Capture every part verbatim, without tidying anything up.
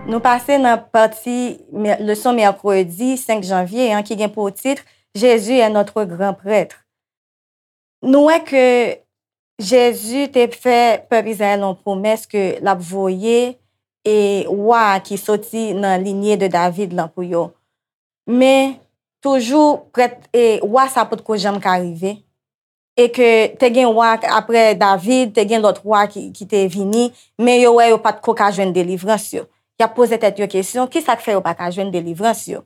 Nou pase nan pati mè- leson mèkredi senk janvye an ki gen pou tit Jésus est notre grand prêtre. Nou wè ke Jezi te fè pèp Izrayèl yon pwomès ke l ap voye e wa ki soti nan linye de David lan pou yo. Men toujou prèt e wa sa potko janm ka rive. E ke te gen wa apre David, te gen lòt wa ki, ki te vini, men yo wè yo pa t ko ka jwenn delivrans yo. Y ap poze tèt yo kesyon, kisa k fè yo pa ka jwenn delivrans yo?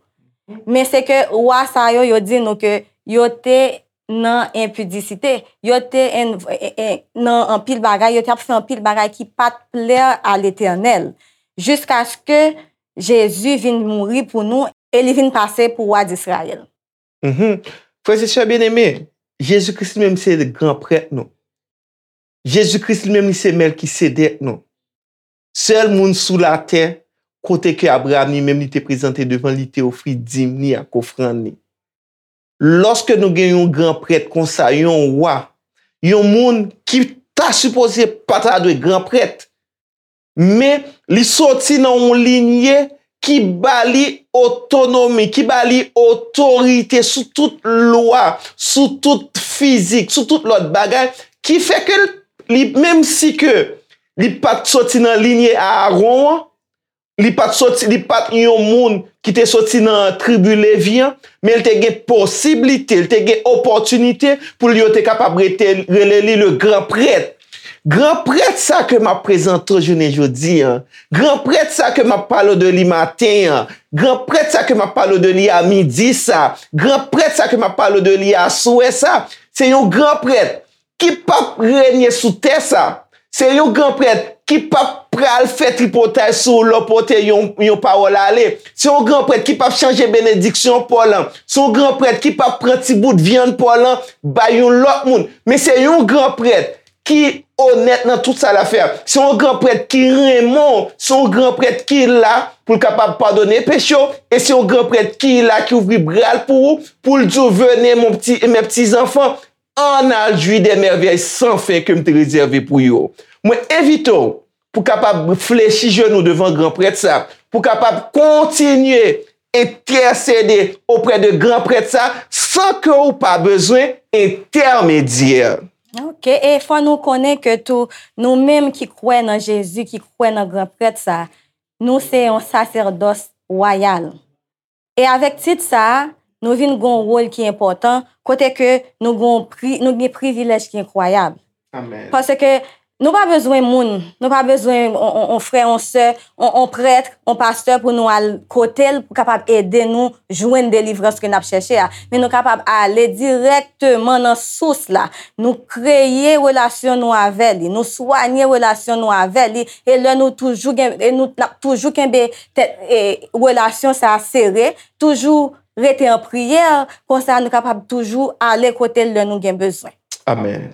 Men se ke wa sa yo, yo di nou ke yo te nan enpidisite, yo te en- en- en- nan anpil bagay, yo te ap fè anpil bagay ki pa t plè a Letènèl, jiskaske Jezi vin mouri pou nou e li vin pase pou wa Disrayèl. Mhm. Frè e sè byeneme, Jezi Kris li menm se gran prèt nou. Jezi Kris li menm li se Mèlkisedèk nou. Sèl moun sou latè kote ke Abraram li menm li te prezante devan li, te ofri dim li ak ofrann li. Lòske nou gen yon gran prèt konsa, yon wa, yon moun ki ta sipoze pa ta dwe gran prèt, men li soti nan yon linye ki ba li otonomi, ki ba li otorite sou tout lwa, sou tout fizik, sou tout lòt bagay, ki fè ke li, menm si ke li pa t soti nan linye Aaron an, li pa t soti, li pa t yon moun ki te soti nan tribi Levi an, men li te gen posiblite, li te gen opòtinite pou li yo te kapab rete, rele li le gran prèt. Gran prèt sa ke m ap prezante w jounen jodi an, gran prèt sa ke m ap pale w de li maten an, gran prèt sa ke m ap pale w de li a midi sa, gran prèt sa ke m ap pale w de li aswè sa, se yon gran prèt ki p ap renye sou tè sa. Se yon gran prèt ki p ap pral fè tripotay sou ou lè w pote yon, yon pawòl ale. Se yon gran prèt ki p ap chanje benediksyon pa w lan. Se yon gran prèt ki p ap pran ti bout vyann pa w lan bay yon lòt moun. Men se yon gran prèt ki onèt nan tout sa l ap fè. Se yon gran prèt ki renmen w. Se yon gran prèt ki la pou l kapab padone peche w. E se yon gran prèt ki la, ki ouvri bra l pou ou, pou l di w, venez, mon petit, mes petits enfants, ann al jwi de mèvèy san fen ke m te rezève pou yo. Mwen envite w pou kapab flechi jenou devan gran prèt sa, pou kapab kontinye entèsede oprè de gran prèt sa san ke w pa bezwen entèmedyè. Ok, e fò nou konnen ke tou, nou menm ki kwè nan Jezi, ki kwè nan gran prèt sa, nou se yon sasèdòs wayal. E avèk tit sa a, nou vin gen yon wòl ki enpòtan, kote ke nou gen yon pri, nou gen privilèj ki enkwayab. Amèn. Paske nou pa bezwen moun, nou pa bezwen on, on, on frè, on sè, on, on prèt, on pastè pou nou al kote l pou kapab ede nou jwenn delivrans ke n ap chèche a. Men nou kapab ale dirèkteman nan sous la. Nou kreye relasyon nou avè li, nou swanye relasyon nou avè li, e lè nou toujou gen, e nou, n ap toujou kenbe tèt, e, relasyon sa a sere, toujou rete an priyè, konsa nou kapab toujou ale kote l lè nou gen bezwen. Amèn.